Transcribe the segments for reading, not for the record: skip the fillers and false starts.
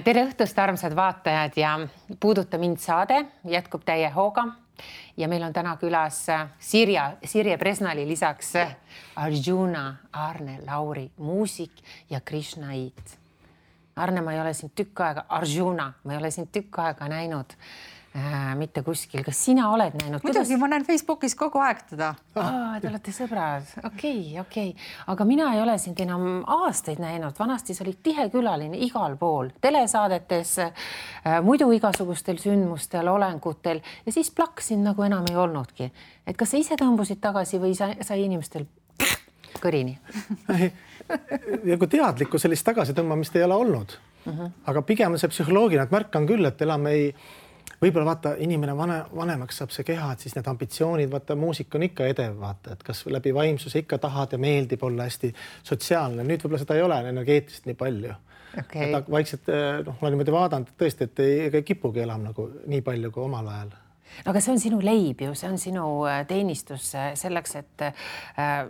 Tere õhtust, armsad vaatajad ja Puuduta mind saade jätkub täie hooga ja meil on täna külas Sirje Presnali lisaks Arjuna, Arne Lauri, muusik ja Krishnait. Arne, ma ei ole sind tükk aega, Arjuna, ma ei ole sind tükk aega näinud mitte kuskil. Kas sina oled näinud? Muidugi, ma näen Facebookis kogu aeg teda. Te olete sõbrad. Okei. Aga mina ei ole sind enam aastaid näinud. Vanasti sa olid tihe külaline igal pool. Telesaadetes, muidu igasugustel sündmustel, olengutel ja siis plaksin nagu enam ei olnudki. Et kas sa ise tõmbusid tagasi või sai inimestel kõrini? Ja kui teadlikku sellist tagasi tõmbamist ei ole olnud. Aga pigem on see psühholoogiline, et märkan küll, et elame võib-olla vaata, inimene vanemaks saab see keha, et siis need ambitsioonid, vaata, muusik on ikka edev, vaata, et kas läbi vaimsuse ikka tahad ja meeldib olla hästi sotsiaalne. Nüüd võib-olla seda ei ole energeetist nii palju. Okay. Et vaikselt, ma niimoodi vaadanud, et tõesti, et ei kipugi elam nagu nii palju kui omal ajal. Aga see on sinu leib ju, see on sinu teenistus selleks, et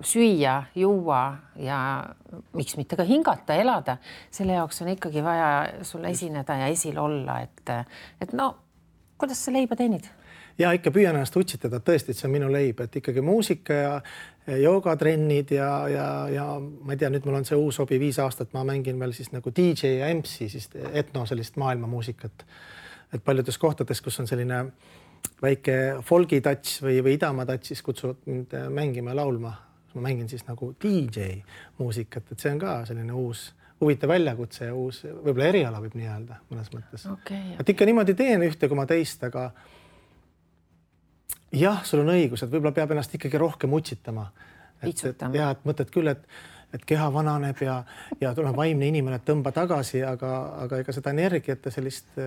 süüa, juua ja miks mitte ka hingata, elada. Selle jaoks on ikkagi vaja sulle esineda ja esil olla, et no, kuidas sa leiba teenid? Ja ikka püüan ennast utsitada, tõesti, et see on minu leib, et ikkagi muusika ja joogatrennid ja ma ei tea, nüüd mul on see uus hobi 5 aastat, ma mängin veel siis nagu DJ ja MC, siis etno sellist maailmamuusikat. Et paljudes kohtades, kus on selline väike folgi touch või idamaa touch, siis kutsuvad mind mängima ja laulma. Ma mängin siis nagu DJ muusikat, et see on ka selline uus huvitav väljakutse ja uus, võib-olla eriala võib nii öelda mõnes mõttes. Okay. Et ikka niimoodi teen ühte kui ma teist, aga jah, sul on õigus, et võib-olla peab ennast ikkagi rohkem utsitama. Ja, et mõtled küll, et keha vananeb ja tuleb vaimne inimene, et tõmba tagasi, aga ega seda energiat ja sellist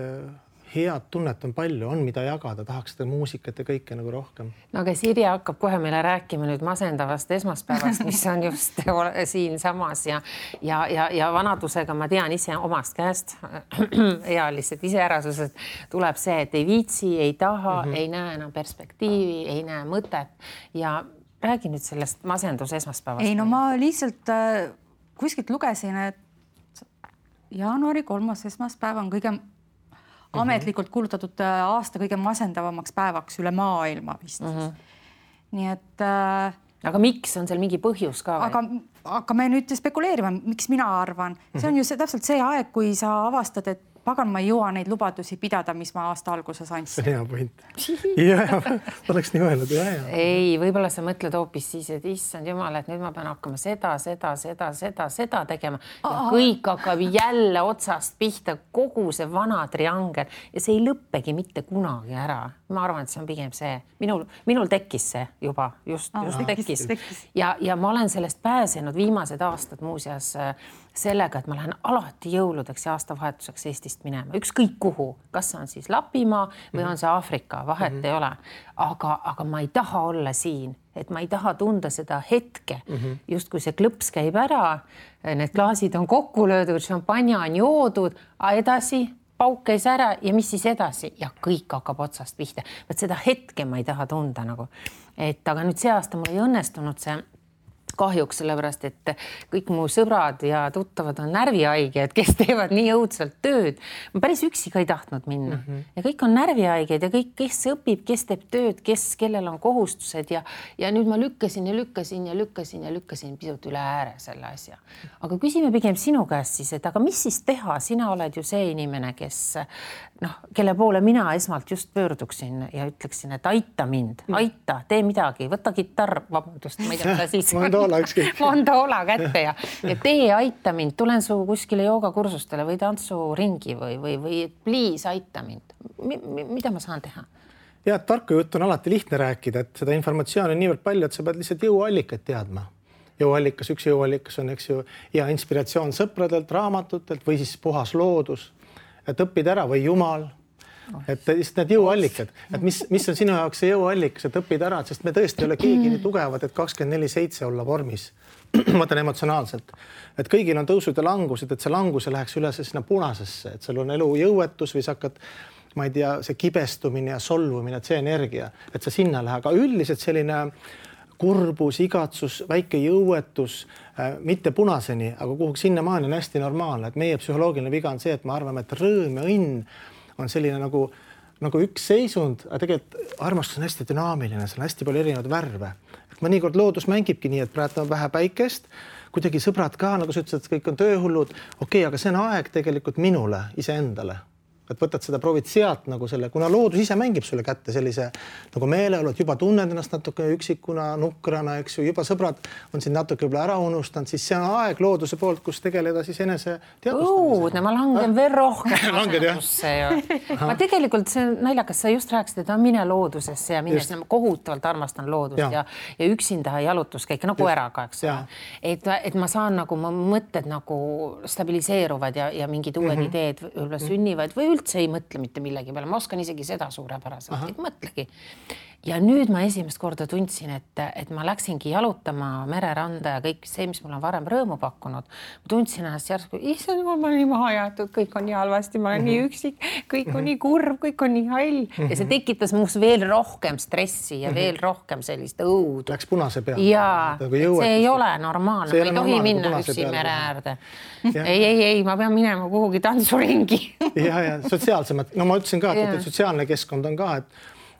head tunnet on palju, on mida jagada, tahaks seda muusikat ja kõike nagu rohkem. No aga Sirje hakkab kohe meile rääkima nüüd masendavast esmaspäevast, mis on just siin samas ja vanadusega ma tean ise omast käest ealised iseärasused tuleb see, et ei viitsi, ei taha, ei näe enam perspektiivi, ei näe mõtet ja räägi nüüd sellest masendus esmaspäevast. Ei, no ma lihtsalt kuskilt lugesin, et jaanuari 3. esmaspäev on kõige ametlikult kuulutatud aasta kõige masendavamaks päevaks üle maailma vist. Nii et... Aga miks on seal mingi põhjus ka? Aga me nüüd spekuleerime, miks mina arvan. See on ju täpselt see aeg, kui sa avastad, et pagan, ma ei jõua neid lubadusi pidada, mis ma aasta alguses andsin. See on hea point. Ja, oleks nii öelnud. Ei, võib-olla sa mõtled hoopis siis, et issand jumal, et nüüd ma pean hakkama seda tegema. Ja kõik hakkab jälle otsast pihta, kogu see vana triangel ja see ei lõppegi mitte kunagi ära. Ma arvan, et see on pigem see. Minul tekkis see juba, just tekkis. Ja ma olen sellest pääsenud viimased aastad muuseas sellega, et ma lähen alati jõuludeks ja aastavahetuseks Eestist minema. Ükskõik kuhu, kas on siis Lapimaa või on see Aafrika, vahet ei ole. Aga ma ei taha olla siin, et ma ei taha tunda seda hetke. Just kui see klõps käib ära, need klaasid on kokku löödud, šampanja on joodud, edasi pauk käis ära ja mis siis edasi? Ja kõik hakkab otsast pihta. Võt seda hetke ma ei taha tunda nagu. Aga nüüd see aasta mul ei õnnestunud see kahjuks, sellepärast, et kõik mu sõbrad ja tuttavad on närvihaiged, kes teevad nii õudselt tööd. Ma päris üksi ka ei tahtnud minna. Ja kõik on närvihaiged ja kõik, kes õpib, kes teeb tööd, kellel on kohustused ja nüüd ma lükkasin pisut üle ääre selle asja. Aga küsime pigem sinu käest siis, et aga mis siis teha? Sina oled ju see inimene, kelle poole mina esmalt just pöörduksin ja ütleksin, et aita mind, aita, tee midagi, võta gitarr, vabandust, ma ei tea, siis Mandoola kätte ja tee aita mind, tulen su kuskile joogakursustele või tantsuringi või please aita mind. Mida ma saan teha? Ja, tarku juttu on alati lihtne rääkida, et seda informatsiooni on niivõrd palju, et sa pead lihtsalt jõuallikad teadma. Üks jõuallikas on, eks ju, ja inspiratsioon sõpradelt, raamatutelt või siis puhas loodus, et õppid ära või Jumal. Et need jõuallikad, et mis on sinu jaoks see jõuallikas, et õppid ära, sest me tõesti ei ole keegi nii tugevad, et 24/7 olla vormis. Ma mõtlen emotsionaalselt, et kõigil on tõusud ja langused, et see langus läheks üle sinna punasesse, et seal on elu jõuetus või sa hakkad, ma ei tea, see kibestumine ja solvumine, et see energia, et sa sinna lähe, aga üldiselt selline kurbus, igatsus, väike jõuetus, mitte punaseni, aga kuhugi sinnamaani on hästi normaalne, et meie psühholoogiline viga on see, et me arvame, et rõõm ja õnn on selline nagu üks seisund, aga tegelikult armastus on hästi dünaamiline, seal on hästi palju erinevaid värve. Et mõnikord loodus mängibki nii, et praegu on vähe päikest, kuidagi sõbrad ka, nagu sa ütlesid, et kõik on tööhullud. Okei, aga see on aeg tegelikult minule, iseendale. Et võtad seda, proovid sealt nagu selle, kuna loodus ise mängib sulle kätte sellise nagu meeleolu, et juba tunned ennast natuke üksikuna, nukrana, eks ju, juba sõbrad on siin natuke võib-olla ära unustanud, siis see on aeg looduse poolt, kus tegeleda siis enese teadvustamisega. Ma langen veel rohkem asendusse. Ma tegelikult see naljakas, sa just rääkisid, et mine loodusesse ja mine sinna, kohutavalt armastan loodust ja üksinda jalutuskäike nagu eraga, eks. Et ma saan nagu, ma mõtted nagu stabiliseeruvad ja mingid uued ideed sünnivad või üldse ei mõtle mitte millegi peale. Ma oskan isegi seda suurepäraselt, et mõtlegi. Ja nüüd ma esimest korda tundsin, et ma läksingi jalutama mereranda ja kõik see, mis mul on varem rõõmu pakkunud. Ma tundsin ennast järsku, issand, ma olen nii maha jäetud, kõik on nii halvasti, ma olen nii üksik, kõik on nii kurb, kõik on nii hall. Ja see tekitas muus veel rohkem stressi ja veel rohkem sellist õudu. Läks punase peale. Ja see ei ole normaalne, ma ei tohi minna üksi mere äärde. Ei, ma pean minema kuhugi tantsuringi. Ja sotsiaalsemad, no ma ütlesin ka, et sotsiaalne keskkond on ka,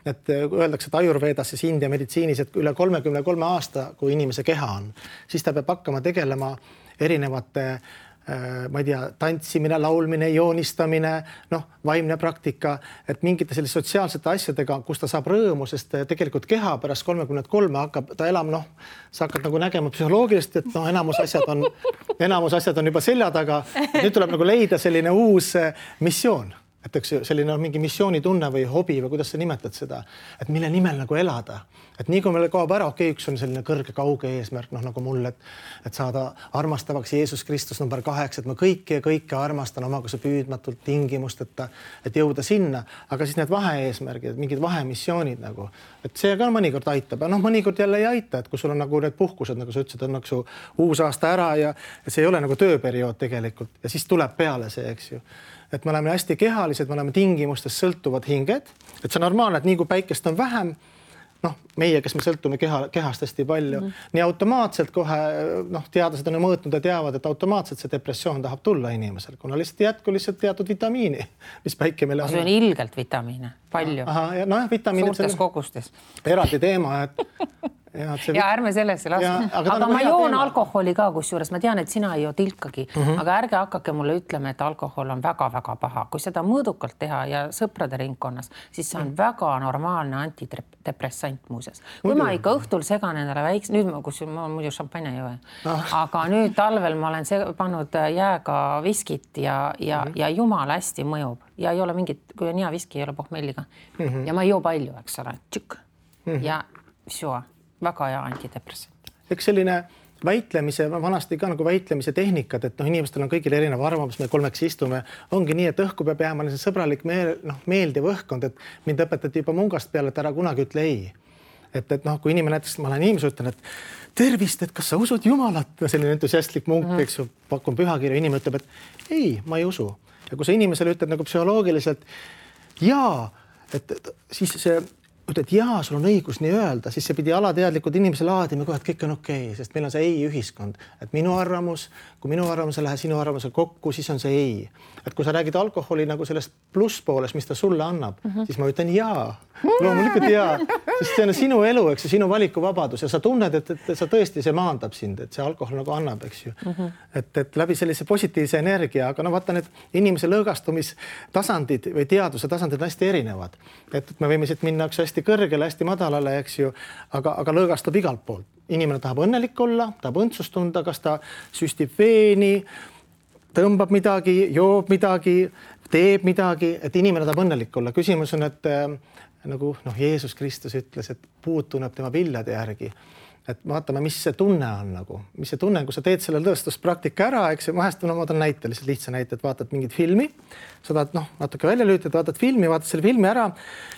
et öeldakse, et ajurveedas ja India meditsiinis, et üle 33 aasta, kui inimese keha on, siis ta peab hakkama tegelema erinevate, ma ei tea, tantsimine, laulmine, joonistamine, vaimne praktika, et mingite selliste sotsiaalsete asjadega, kus ta saab rõõmu, sest tegelikult keha pärast 33 hakkab ta elama, sa hakkad nagu nägema psühholoogilist, et enamus asjad on juba selja taga. Nüüd tuleb nagu leida selline uus missioon. Et eks selline mingi missioonitunne või hobi või kuidas sa nimetad seda, et mille nimel nagu elada. Et nii kui meile kaob ära, üks on selline kõrge kauge eesmärk, nagu mul, et saada armastavaks Jeesus Kristus number 8, et ma kõike armastan omaga püüdmatult tingimust, et jõuda sinna, aga siis need vahe-eesmärgid, mingid vahemissioonid nagu, et see ka mõnikord aitab, mõnikord jälle ei aita, et kui sul on nagu need puhkused, nagu sa ütlesid, on nagu uus aasta ära ja see ei ole nagu tööperiood tegelikult ja siis tuleb peale see, eks ju. Et me oleme hästi kehalised, me oleme tingimustest sõltuvad hinged, et see on normaalne, et nii kui päikest on vähem, meie, kes me sõltume kehast hästi palju, nii automaatselt kohe, teadlased on mõõtnud ja teavad, et automaatselt see depressioon tahab tulla inimesel, kuna lihtsalt teatud vitamiini, mis päike meile on. See on ilgelt vitamiine, palju. Suurtes kogustes. Eraldi teema, et ja ärme sellesse laske. Aga ma joon alkoholi ka, kusjuures ma tean, et sina ei joo tilkagi, aga ärge hakkake mulle ütlema, et alkohol on väga-väga paha. Kui seda mõõdukalt teha ja sõprade ringkonnas, siis see on väga normaalne antidepressant muuses. Kui ma ikka õhtul segan endale väikse, nüüd ma muidu šampanja ei joe, aga nüüd talvel ma olen pannud jääga viskit ja jumal hästi mõjub ja ei ole mingit, kui on hea viski, ei ole pohmelliga ja ma ei joo palju, eks ole, tšükk ja sjoa. Väga hea antidepressant. Eks selline väitlemise, vanasti ka nagu väitlemise tehnikad, et inimestel on kõigil erinev arvamus, me kolmeks istume, ongi nii, et õhku peab jääma see sõbralik meeldiv õhkkond, et mind õpetati juba mungast peale, et ära kunagi ütle ei. Et kui inimene näiteks, ma olen inimese ütlen, et tervist, et kas sa usud Jumalat, selline entusiastlik munk, eks ju, pakun pühakirja, inimene ütleb, et ei, ma ei usu. Ja kui sa inimesele ütled nagu psühholoogiliselt jaa, et siis see et jaa, sul on õigus nii öelda, siis see pidi alateadlikud inimese laadima kohe, et kõik on okei, sest meil on see ei ühiskond, et minu arvamus, kui minu arvamus ei lähe sinu arvamusel kokku, siis on see ei. Et kui sa räägid alkoholi nagu sellest plusspoolest, mis ta sulle annab, siis ma ütlen jaa, loomulikult jaa, sest see on sinu elu, eks see sinu valikuvabadus ja sa tunned, et sa tõesti see maandab sind, et see alkohol nagu annab, eks ju. Et läbi sellise positiivse energia, aga vaata need inimese lõõgastumistasandid või teaduse tasandid on hästi erinevad. Et me võime siit minna hästi kõrgele, hästi madalale, eks ju, aga lõõgastub igalt poolt. Inimene tahab õnnelik olla, tahab õndsust tunda, kas ta süstib veeni, tõmbab midagi, joob midagi, teeb midagi, et inimene tahab õnnelik olla. Küsimus on, et nagu Jeesus Kristus ütles, et puud tunneb tema viljade järgi. Et vaatame, mis see tunne on nagu, mis see tunne on, kui sa teed selle tõestuspraktika ära, eks vahest ma toon näite, lihtsalt lihtsa näite, et vaatad mingit filmi, sa tahad natuke välja lüütad, vaatad filmi, vaatad selle filmi ära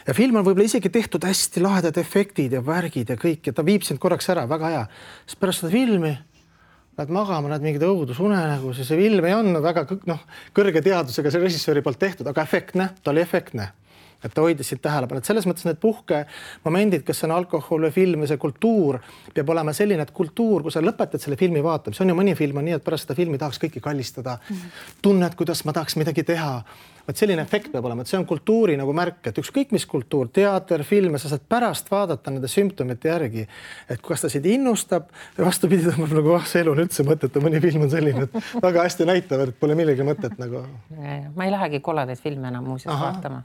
ja film on võib-olla isegi tehtud hästi lahedad efektid ja värgid ja kõik ja ta viib sind korraks ära, väga hea. Siis pärast seda filmi lähed magama, näed mingid õudusune nagu, see film ei olnud väga kõrge teadusega see režissööri poolt tehtud, aga efektne, ta oli efektne. et ta hoidis siit tähelepanu, et selles mõttes need puhkemomendid, kes on alkohol või film või see kultuur peab olema selline, et kultuur, kui sa lõpetad selle filmi vaatamise, on ju mõni film on nii, et pärast seda filmi tahaks kõiki kallistada, tunned, kuidas ma tahaks midagi teha. Vaat selline efekt peab olema, et see on kultuuri nagu märk, et ükskõik mis kultuur, teater, film, sa saad pärast vaadata nende sümptomite järgi, et kas ta sind innustab ja vastupidi, tõmbab nagu see elu on üldse mõtet, mõni film on selline, et väga hästi näitavad, et pole millegi mõtet nagu. Ma ei lähegi kolladaid filme enam muuseas vaatama,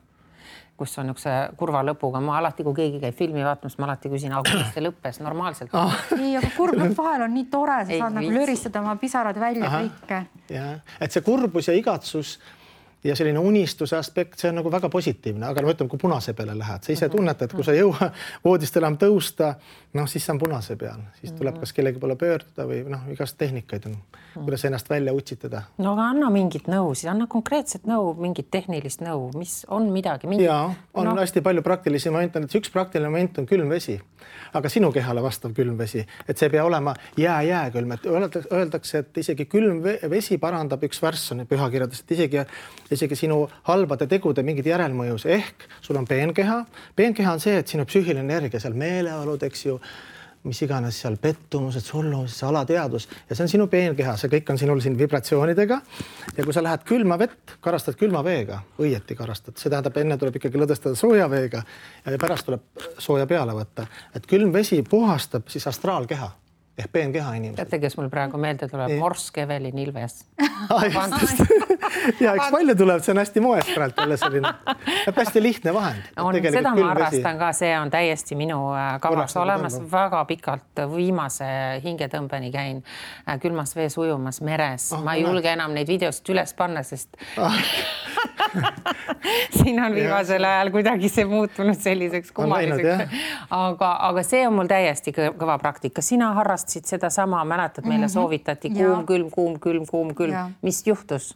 kus on üks kurva lõpuga. Ma alati, kui keegi käib filmi vaatamas, ma alati küsin, kuidas see lõppes normaalselt. Ei, aga kurb lõpp vahel on nii tore, sa saad nagu löristada oma pisarad välja kõike. Ja, et see kurbus ja igatsus ja selline unistuse aspekt, see on nagu väga positiivne, aga ma ütlen, kui punase peale lähed, sa ise tunned, et kui sa jõua voodist enam tõusta, siis see on punase peal, siis tuleb kas kellegi poole pöörduda või igast tehnikaid on, kuidas ennast välja utsitada. No aga anna mingit nõu, siis anna konkreetset nõu, mingit tehnilist nõu, mis on midagi. Ja, on hästi palju praktilisi momente, et üks praktiline moment on külm vesi, aga sinu kehale vastav külm vesi, et see pea olema jääkülm, et öeldakse, et isegi külm vesi parandab üks värss on pühakirjades, et isegi sinu halbade tegude mingid järelmõjus, ehk sul on peenkeha. Peenkeha on see, et sinu psüühiline energia, seal meeleolud, eks ju, mis iganes seal pettumused, solvumised, alateadus ja see on sinu peenkeha, see kõik on sinul siin vibratsioonidega ja kui sa lähed külma vett, karastad külma veega, õieti karastad, see tähendab, enne tuleb ikkagi lõdestada sooja veega ja pärast tuleb sooja peale võtta, et külm vesi puhastab siis astraalkeha ehk peenkeha inimesed. Teate, kes mul praegu meelde tuleb? Morsk Evelin Ilves. Ja eks palju tuleb, see on hästi moest praegu jälle selline. Hästi lihtne vahend. Seda ma arvastan ka, see on täiesti minu kavas olemas. Väga pikalt viimase hingetõmbeni käin külmas vees ujumas meres. Ma ei julge enam neid videost üles panna, sest siin on viimasel ajal kuidagi see muutunud selliseks kummaliseks. Aga see on mul täiesti kõva praktika. Sina harrastasid seda sama, mäletad, meile soovitati kuum, külm. Mis juhtus?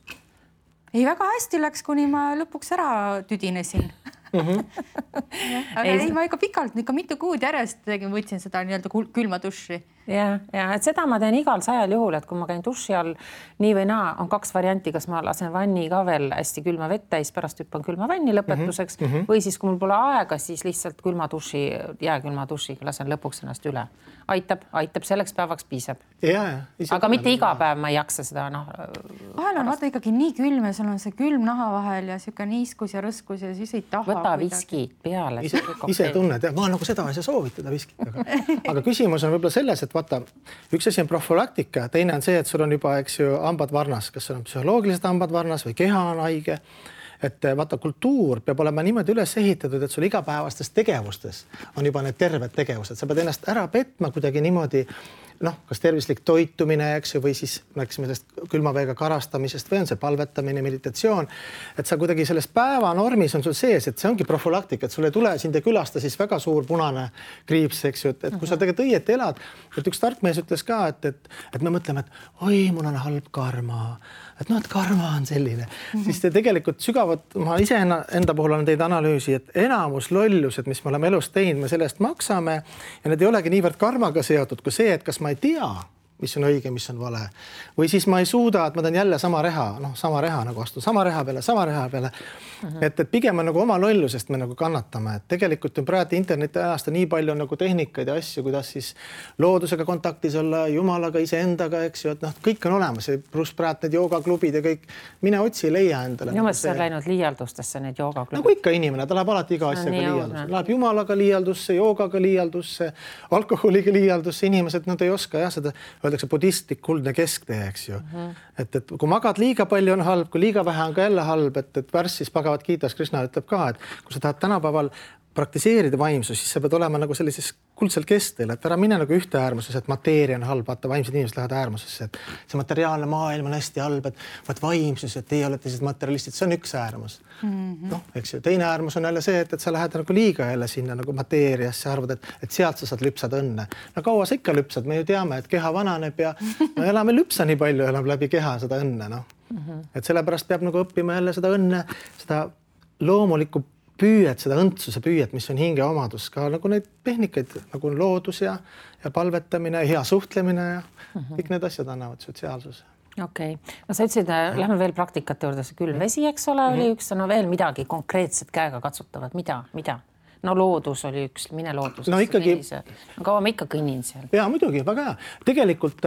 Ei, väga hästi läks, kuni ma lõpuks ära tüdinesin. Aga ei, ma ikka pikalt, ikka mitu kuud järjest võtsin seda nii-öelda külma duši. Ja, et seda ma teen igal 100 juhul, et kui ma käin duši all nii või naa, on 2 varianti, kas ma lasen vanni ka veel hästi külma vett täis, pärast hüppan külma vanni lõpetuseks või siis, kui mul pole aega, siis lihtsalt külma duši, jääkülma dušiga lasen lõpuks ennast üle. Aitab, selleks päevaks piisab. Aga mitte iga päev ma ei jaksa seda. Vahel on vaata ikkagi nii külm ja sul on see külm naha vahel ja siuke niiskus ja rõskus ja siis ei taha. Võta viskid peale. Ise tunned, ma nagu seda ei saa soovitada viskid. Aga küsimus on võib-olla selles, et vaata, üks asi on profülaktika, teine on see, et sul on juba, eks ju, hambad varnas, kas sul on psühholoogilised hambad varnas või keha on haige. Et vaata, kultuur peab olema niimoodi üles ehitatud, et sul igapäevastes tegevustes on juba need terved tegevused. Sa pead ennast ära petma kuidagi niimoodi, kas tervislik toitumine, eks ju, või siis rääkisime sellest külmaveega karastamisest või on see palvetamine, meditatsioon, et sa kuidagi selles päevanormis on sul sees, et see ongi profülaktika, et sul ei tule sind ja külasta siis väga suur punane kriips, eks ju, et kui sa tegelikult õieti elad, et üks tark mees ütles ka, et me mõtleme, et oi, mul on halb karma, et karma on selline, siis te tegelikult sügavalt, ma ise enda puhul olen teid analüüsi, et enamus lollused, mis me oleme elus teinud, me sellest maksame ja need ei olegi niivõrd karmaga seotud kui see, et kas ma ei tea, mis on õige, mis on vale. Või siis ma ei suuda, et ma teen jälle sama reha nagu astun, sama reha peale. Et pigem on nagu oma lollusest me nagu kannatame. Et tegelikult on praegu interneti ajast nii palju nagu tehnikaid ja asju, kuidas siis loodusega kontaktis olla, jumalaga, iseendaga, eks ju, et kõik on olemas. Pluss praegu need joogaklubid ja kõik. Mine otsi, leia endale. Minu mõttes on läinud liialdustesse need joogaklubid. Nagu ikka inimene, ta läheb alati iga asjaga liialdusse. Läheb jumalaga liialdusse, joogaga liialdusse, alkoholiga liialdusse. Inimesed, nad ei oska seda öeldakse budistlik kuldne kesktee, eks ju. Et kui magad liiga palju on halb, kui liiga vähe on ka jälle halb, et värssis Bhagavad Gitas Krishna ütleb ka, et kui sa tahad tänapäeval praktiseerida vaimsus, siis sa pead olema nagu sellises kuldsel kestel, et ära mine nagu ühte äärmuses, et mateeria on halb, vaata vaimsed inimesed lähevad äärmusesse, et see materiaalne maailm on hästi halb, et vaimsus, et teie olete siis materialistid, see on üks äärmus. Eks ju, teine äärmus on jälle see, et sa lähed nagu liiga jälle sinna nagu mateeriasse, arvad, et sealt sa saad lüpsada õnne. No kaua sa ikka lüpsad, me ju teame, et keha vananeb ja me elame lüpsa nii palju, elame läbi keha seda õnne, Et sellepärast peab nagu õppima jälle seda õnne, seda loomulikku püüet, seda õndsuse püüet, mis on hinge omadus, ka nagu neid tehnikaid, nagu loodus ja palvetamine, hea suhtlemine ja kõik need asjad annavad sotsiaalsuse. Okei. No sa ütlesid, lähme veel praktikate juurde, see külmvesi, eks ole, oli üks, no veel midagi konkreetset käega katsutavat, mida? No loodus oli üks, mine loodus. No ikkagi. Kaua ma ikka kõnnin seal? Jaa, muidugi, väga hea. Tegelikult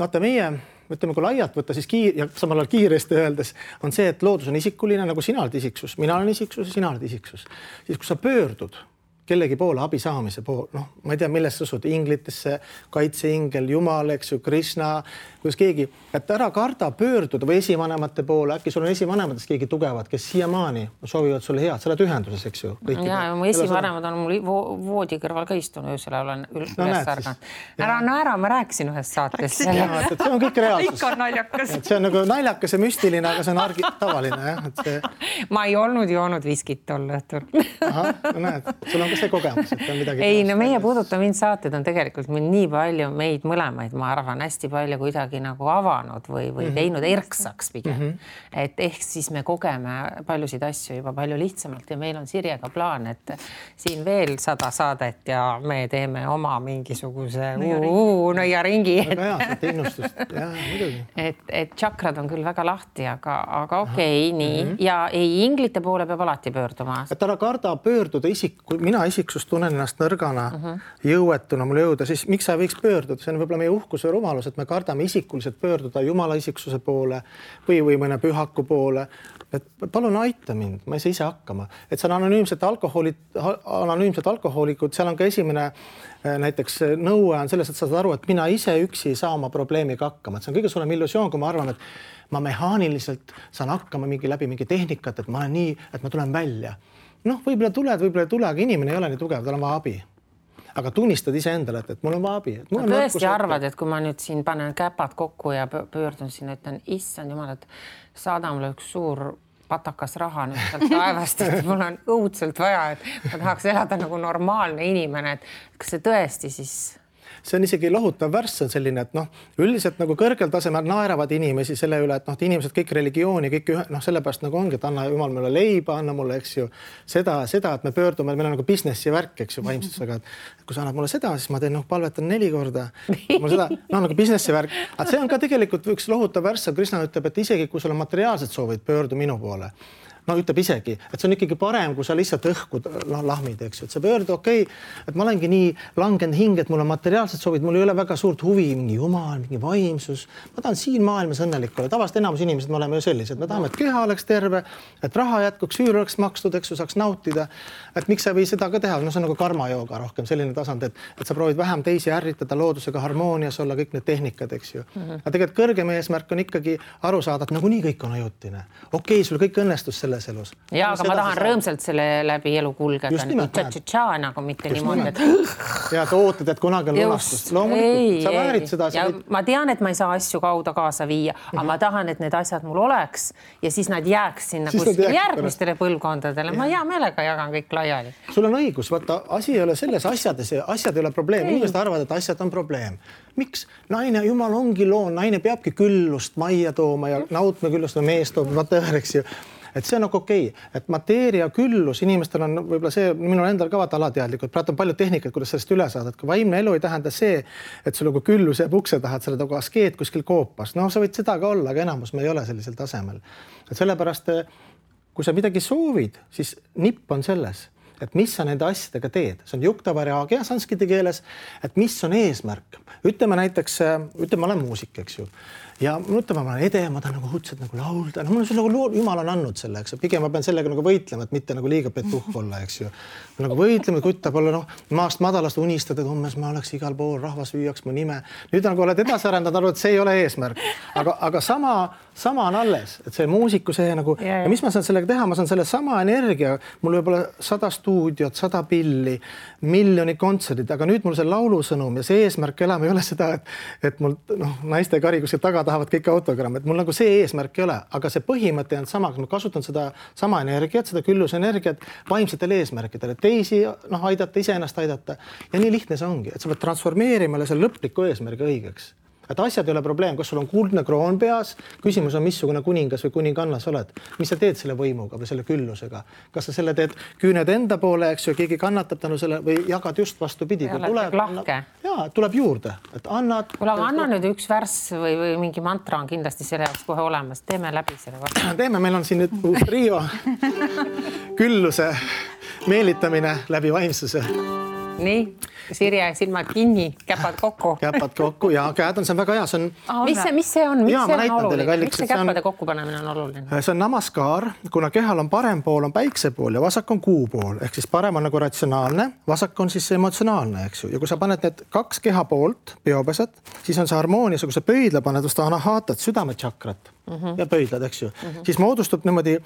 vaata meie, ütleme, kui laialt võtta, siis ja samal ajal kiiresti öeldes on see, et loodus on isikuline, nagu sina oled isiksus, mina olen isiksus ja sina oled isiksus. Siis kui sa pöördud kellegi poole abi saamise poole, noh, ma ei tea, millest sa usud, inglitesse, kaitseingel, Jumal, eks ju, Krishna, kuidas keegi, et ära karda pöörduda või esivanemate poole, äkki sul on esivanematest keegi tugevad, kes siiamaani soovivad sulle head, sa oled ühenduses, eks ju. Ja mu esivanemad on mul voodi kõrval ka istunud, öösel olen üles ärganud. Ära naera, ma rääkisin ühest saates. See on kõik reaalsus. Ikka on naljakas. See on nagu naljakas ja müstiline, aga see on tavaline. Ma ei olnud joonud viskit tol õhtul. Aha, no näed, sul on see kogemus, et on midagi. Ei, no meie Puuduta mind saated on tegelikult meil nii palju meid mõlemaid, ma arvan, hästi palju kuidagi nagu avanud või teinud erksaks pigem. Et ehk siis me kogeme paljusid asju juba palju lihtsamalt ja meil on Sirjega plaan, et siin veel 100 saadet ja me teeme oma mingisuguse nõiaringi. Väga hea, see innustust. Jaa, muidugi. Et tšakrad on küll väga lahti, aga okei, nii. Ja ei, inglite poole peab alati pöörduma. Et ära karda pöörduda kui mina isiksus tunnen ennast nõrgana, jõuetuna mul jõuda, siis miks sa võiks pöörduda? See on võib-olla meie uhkus või rumalus, et me kardame isikuliselt pöörduda Jumala isiksuse poole või mõne pühaku poole. Et palun aita mind, ma ei saa ise hakkama. Et see on anonüümsed alkohoolikud, seal on ka esimene näiteks nõue on selles, et sa saad aru, et mina ise üksi ei saa oma probleemiga hakkama. Et see on kõige suurem illusioon, kui ma arvan, et ma mehaaniliselt saan hakkama läbi mingi tehnikat, et ma olen nii, et ma tulen välja. Noh, võib-olla tuled, võib-olla ei tule, aga inimene ei ole nii tugev, tal on vaja abi. Aga tunnistad ise endale, et mul on vaja abi. Ma tõesti arvad, et kui ma nüüd siin panen käpad kokku ja pöördun siin, ütlen, issand jumal, et saada mulle üks suur patakas raha nüüd sealt taevast, et mul on õudselt vaja, et ma tahaks elada nagu normaalne inimene, et kas see tõesti siis... See on isegi lohutav värss on selline, et üldiselt nagu kõrgel tasemel naeravad inimesi selle üle, et inimesed kõik religiooni, kõik sellepärast nagu ongi, et anna Jumal mulle leiba, anna mulle, eks ju, seda, et me pöördume, meil on nagu businessi värk, eks ju, vaimsusega, et kui sa annad mulle seda, siis ma teen, palvetan 4 korda. Mul seda, nagu businessi värk. Aga see on ka tegelikult üks lohutav värss, Krishna ütleb, et isegi kui sul on materiaalsed soovid, pöördu minu poole. No ütleb isegi, et see on ikkagi parem, kui sa lihtsalt õhkud lahmid, eks ju, et sa pöördu, okei, et ma olengi nii langenud hing, et mul on materiaalsed soovid, mul ei ole väga suurt huvi, mingi Jumal, mingi vaimsus. Ma tahan siin maailmas õnnelik olla. Tavaliselt enamus inimesed me oleme ju sellised. Me tahame, et keha oleks terve, et raha jätkuks, üür oleks makstud, eks ju, saaks nautida. Et miks sa või seda ka teha? No see on nagu karmajooga rohkem, selline tasand, et sa proovid vähem teisi ärritada, loodusega harmoonias olla, kõik need tehnikad, eks ju. Aga tegelikult kõrgem eesmärk on ikkagi aru saada, et nagunii kõik on ajutine. Okei, sul kõik õnnestus selle elus. Ja, aga ma tahan rõõmsalt selle läbi elu kulgeda. Nagu mitte niimoodi. Ja sa ootad, et kunagi on lunastust. Loomulikult, sa väärid seda. Ja ma tean, et ma ei saa asju kauda kaasa viia, aga ma tahan, et need asjad mul oleks ja siis nad jääks sinna järgmistele põlvkondadele. Ma hea meelega jagan kõik laiali. Sul on õigus, vaata, asi ei ole selles asjad ei ole probleem. Inimesed arvavad, et asjad on probleem. Miks? Naine, Jumal ongi loon, naine peabki küllust majja tooma ja nautma küllust või mees toob, eks ju. Et see on nagu okei, et mateeria küllus, inimestel on võib-olla see, minul endal ka vaata alateadlikult, praegu on palju tehnikat, kuidas sellest üle saada, et vaimne elu ei tähenda see, et sul nagu küllus jääb ukse taha, et sa oled nagu askeet kuskil koopas. No sa võid seda ka olla, aga enamus me ei ole sellisel tasemel. Et sellepärast, kui sa midagi soovid, siis nipp on selles, et mis sa nende asjadega teed. See on juktavariaagia sanskriti keeles, et mis on eesmärk. Ütleme näiteks, ma olen muusik, eks ju. Ja ütleme, ma olen ede, ma tahan nagu hutselt nagu laulda. No, mul on nagu Jumal on andnud selle, eks. Pigem ma pean sellega nagu võitlema, et mitte nagu liiga petuh olla, eks ju. Nagu võitlema, kuttab olla, maast madalast unistada, et ummes ma oleks igal pool, rahvas hüüaks mu nime. Nüüd nagu oled edasi arendanud, arvad, et see ei ole eesmärk. Aga sama on alles, et see muusiku see nagu, ja mis ma saan sellega teha? Ma saan selle sama energia, mul võib olla 100 stuudiot, 100 pilli, miljoni kontserdid, aga nüüd mul see laulusõnum ja see eesmärk elama ei ole seda, et mul naiste kari kuskil taga tahavad kõik autogramm, et mul nagu see eesmärk ei ole, aga see põhimõte on sama, ma kasutan seda sama energiat, seda küllusenergiat vaimsetele eesmärkidele, teisi aidata, iseennast aidata ja nii lihtne see ongi, et sa pead transformeerima selle lõpliku eesmärgi õigeks. et asjad ei ole probleem, kas sul on kuldne kroon peas, küsimus on, missugune kuningas või kuninganna sa oled, mis sa teed selle võimuga või selle küllusega, kas sa selle teed küüned enda poole, eks ju, keegi kannatab tänu selle või jagad just vastupidi, kui tuleb juurde, et annad. Kuule, aga anna nüüd üks värss või mingi mantra on kindlasti selle jaoks kohe olemas, teeme läbi selle vastu. Teeme, meil on siin nüüd uus trio, külluse meelitamine läbi vaimsuse. Nii, Sirje, silmad kinni, käpad kokku. Käpad kokku ja käed on, see on väga hea. Mis see on? Miks see käpade kokkupanemine on oluline? See on namaskar, kuna kehal on parem pool on päikse pool ja vasak on kuu pool. Ehk siis parem on nagu ratsionaalne, vasak on siis emotsionaalne, eks ju. Ja kui sa paned need kaks keha poolt, peopesed, siis on see harmoonias, kui sa pöidla paned vastu anahaatat, südametšakrat ja pöidlad, eks ju. Siis moodustub niimoodi,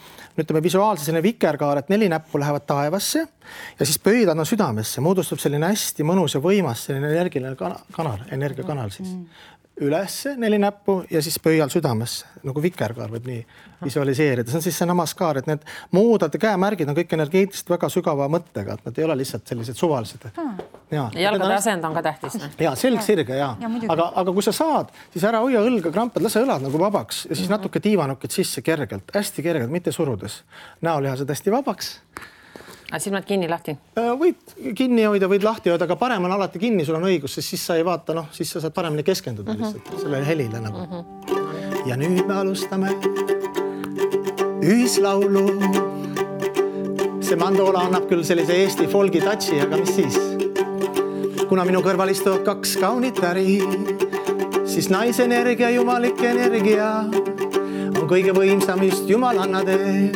ütleme visuaalse selline vikerkaar, et 4 näppu lähevad taevasse ja siis pöidlad on südamesse, moodustub selline hästi mõnus ja võimas selline energiline kanal, energiakanal siis. Ülesse 4 näppu ja siis pöial südamesse, nagu vikerkaar võib nii visualiseerida. See on siis see namaskar, et need muudad käemärgid on kõik energeetiliselt väga sügava mõttega, et nad ei ole lihtsalt sellised suvalised. Jalgade asend on ka tähtis. Ja, selg sirge, ja. Aga kui sa saad, siis ära hoia õlga krampad, lase õlad nagu vabaks ja siis natuke tiivanukid sisse kergelt, hästi kergelt, mitte surudes. Näolihased hästi vabaks. Silmad kinni lahti? Võid kinni hoida, võid lahti hoida, aga parem on alati kinni, sul on õigus, sest siis sa ei vaata, siis sa saad paremini keskenduda lihtsalt sellele helile nagu. Ja nüüd me alustame ühislaulu. See mandoola annab küll sellise Eesti folgi tatsi, aga mis siis? Kuna minu kõrval istuvad 2 kaunit äri, siis naisenergia, jumalik energia on kõige võimsam just jumalanna tee.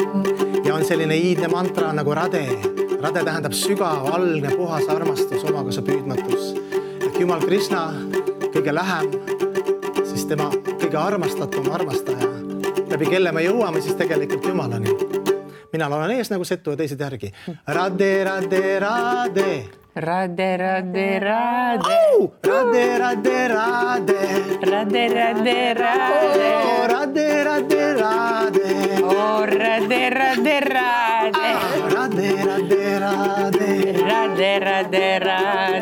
Ja on selline iidne mantra nagu rade. Rade tähendab sügav, algne, puhas armastus, omakasa püüdmatus. Et Jumal Krishna kõige lähem, siis tema kõige armastatum armastaja. Läbi kelle me jõuame siis tegelikult Jumalani. Mina olen ees nagu setu ja teised järgi. Rade, rade, rade. Rade, rade, rade. Rade, rade, rade. Rade, rade, rade. Rade, rade, rade. Rade, rade, rade. Rade, rade, rade. Rade, rade, rade.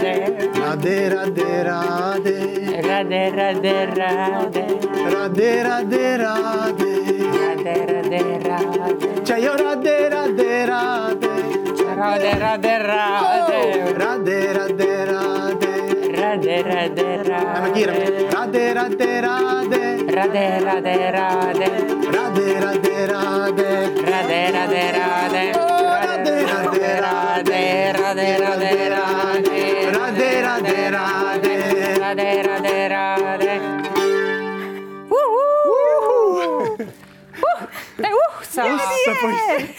Rade, rade, rade. Rade, rade, rade. Rade, rade, rade. Rade, rade, rade. Chayo rade, rade, rade. Rade, rade, rade. Rade, rade, rade. Rade, rade, rade. Lähme kiiremini. Rade, rade, rade. Rade, rade, rade. Rade, rade, rade. Rade, rade, rade. Rade, rade, rade. Rade, rade, rade. Rade, rade, rade. Rade, rade, rade.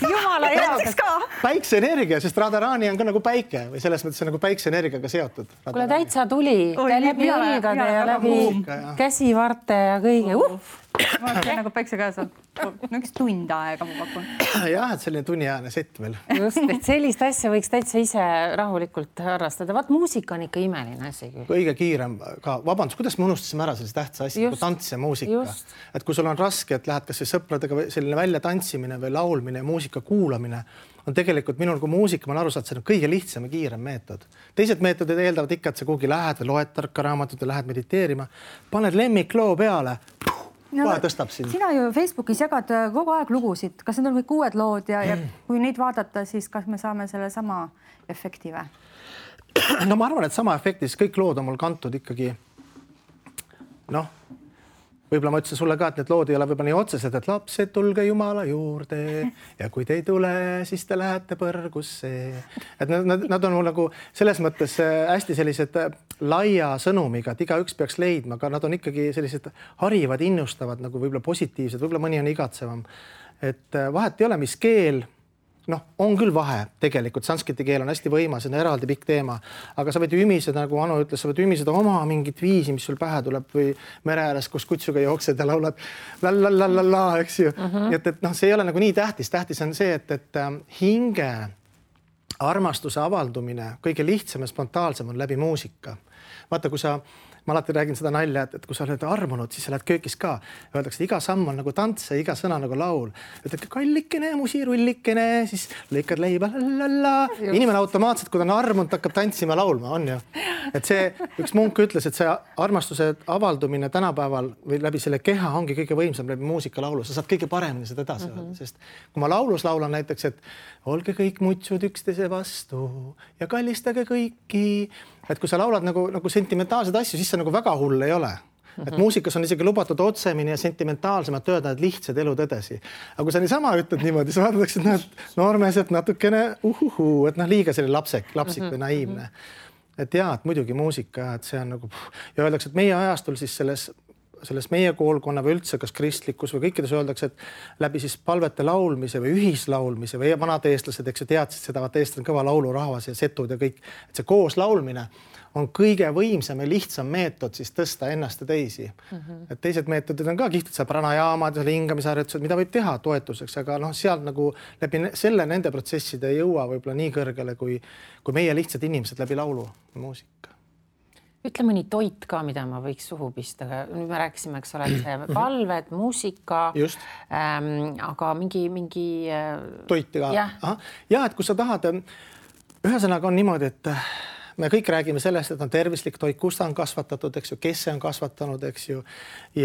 Jumala heaks ka. Päikseenergia, sest Radharani on ka nagu päike või selles mõttes on nagu päikseenergiaga seotud. Kuule, täitsa tuli. Läbi õlgade ja läbi käsivarte ja kõige. Ma olen nagu päikse käes on. Üks tund aega ma pakun. Jah, et selline tunniajane sett veel. Just, et sellist asja võiks täitsa ise rahulikult harrastada. Vaat muusika on ikka imeline asi küll. Kõige kiirem ka. Vabandus, kuidas me unustasime ära sellise tähtsa asja kui tants ja muusika? Et kui sul on raske, et lähed kas või sõpradega selline välja tantsimine või laulmine ja muusika kuulamine, on tegelikult minul kui muusika, ma olen aru saanud, see on kõige lihtsam ja kiirem meetod. Teised meetodid eeldavad ikka, et sa kuhugi lähed või loed tarka raamatut ja lähed mediteerima. Paned lemmikloo peale. Kohe tõstab sind. Sina ju Facebookis jagad kogu aeg lugusid. Kas need on kõik uued lood ja kui neid vaadata, siis kas me saame selle sama efekti või? No ma arvan, et sama efektis kõik lood on mul kantud ikkagi. Võib-olla ma ütlesin sulle ka, et need lood ei ole võib-olla nii otsesed, et lapsed tulge Jumala juurde ja kui te ei tule, siis te lähete põrgusse. Et nad on mul nagu selles mõttes hästi sellised laia sõnumiga, et igaüks peaks leidma, aga nad on ikkagi sellised harivad, innustavad, nagu võib-olla positiivsed, võib-olla mõni on igatsevam. Et vahet ei ole, mis keel, on küll vahe tegelikult, sanskriti keel on hästi võimas, see on eraldi pikk teema, aga sa võid ümiseda, nagu Anu ütles, sa võid ümiseda oma mingit viisi, mis sul pähe tuleb või mere ääres, kus kutsuga jooksed ja laulad la, eks ju. Et see ei ole nagu nii tähtis. Tähtis on see, et hinge armastuse avaldumine kõige lihtsam ja spontaalsem on läbi muusika. Vaata, kui ma alati räägin seda nalja, et kui sa oled armunud, siis sa lähed köökis ka. Öeldakse, et iga samm on nagu tants ja iga sõna nagu laul. Ütled, kallikene, musirullikene, siis lõikad leiba, la. Inimene automaatselt, kui ta on armunud, hakkab tantsima laulma, on ju. et see üks munk ütles, et see armastuse avaldumine tänapäeval või läbi selle keha ongi kõige võimsam läbi muusikalaulu, sa saad kõige paremini seda edasi öelda, sest kui ma laulus laulan näiteks, et olge kõik mutsud üksteise vastu ja kallistage kõiki, et kui sa laulad nagu sentimentaalseid asju, siis see nagu väga hull ei ole. Et muusikas on isegi lubatud otsemini ja sentimentaalsemalt öelda, et lihtsad elutõdesi. Aga kui sa niisama ütled niimoodi, sa vaadatakse, et noormeeselt natukene et liiga selline lapsik või naiivne. Et jaa, et muidugi muusika, et see on nagu ja öeldakse, et meie ajastul siis selles meie koolkonna või üldse kas kristlikus või kõikides öeldakse, et läbi siis palvete laulmise või ühislaulmise või vanad eestlased, eks ju, teadsid seda, vaat eestlased on kõva laulurahvas ja setud ja kõik, et see koos laulmine on kõige võimsam ja lihtsam meetod siis tõsta ennast ja teisi. Et teised meetodid on ka kihvtid, seal pranajaamad ja hingamisharjutused, mida võib teha toetuseks, aga sealt nagu läbi selle nende protsesside ei jõua võib-olla nii kõrgele kui meie lihtsad inimesed läbi laulu ja muusika. Ütle mõni toit ka, mida ma võiks suhu pista. Nüüd me rääkisime, eks ole, palved, muusika, aga mingi toiti ka. Ja, et kui sa tahad, ühesõnaga on niimoodi, et me kõik räägime sellest, et on tervislik toit, kus ta on kasvatatud, eks ju, kes see on kasvatanud, eks ju.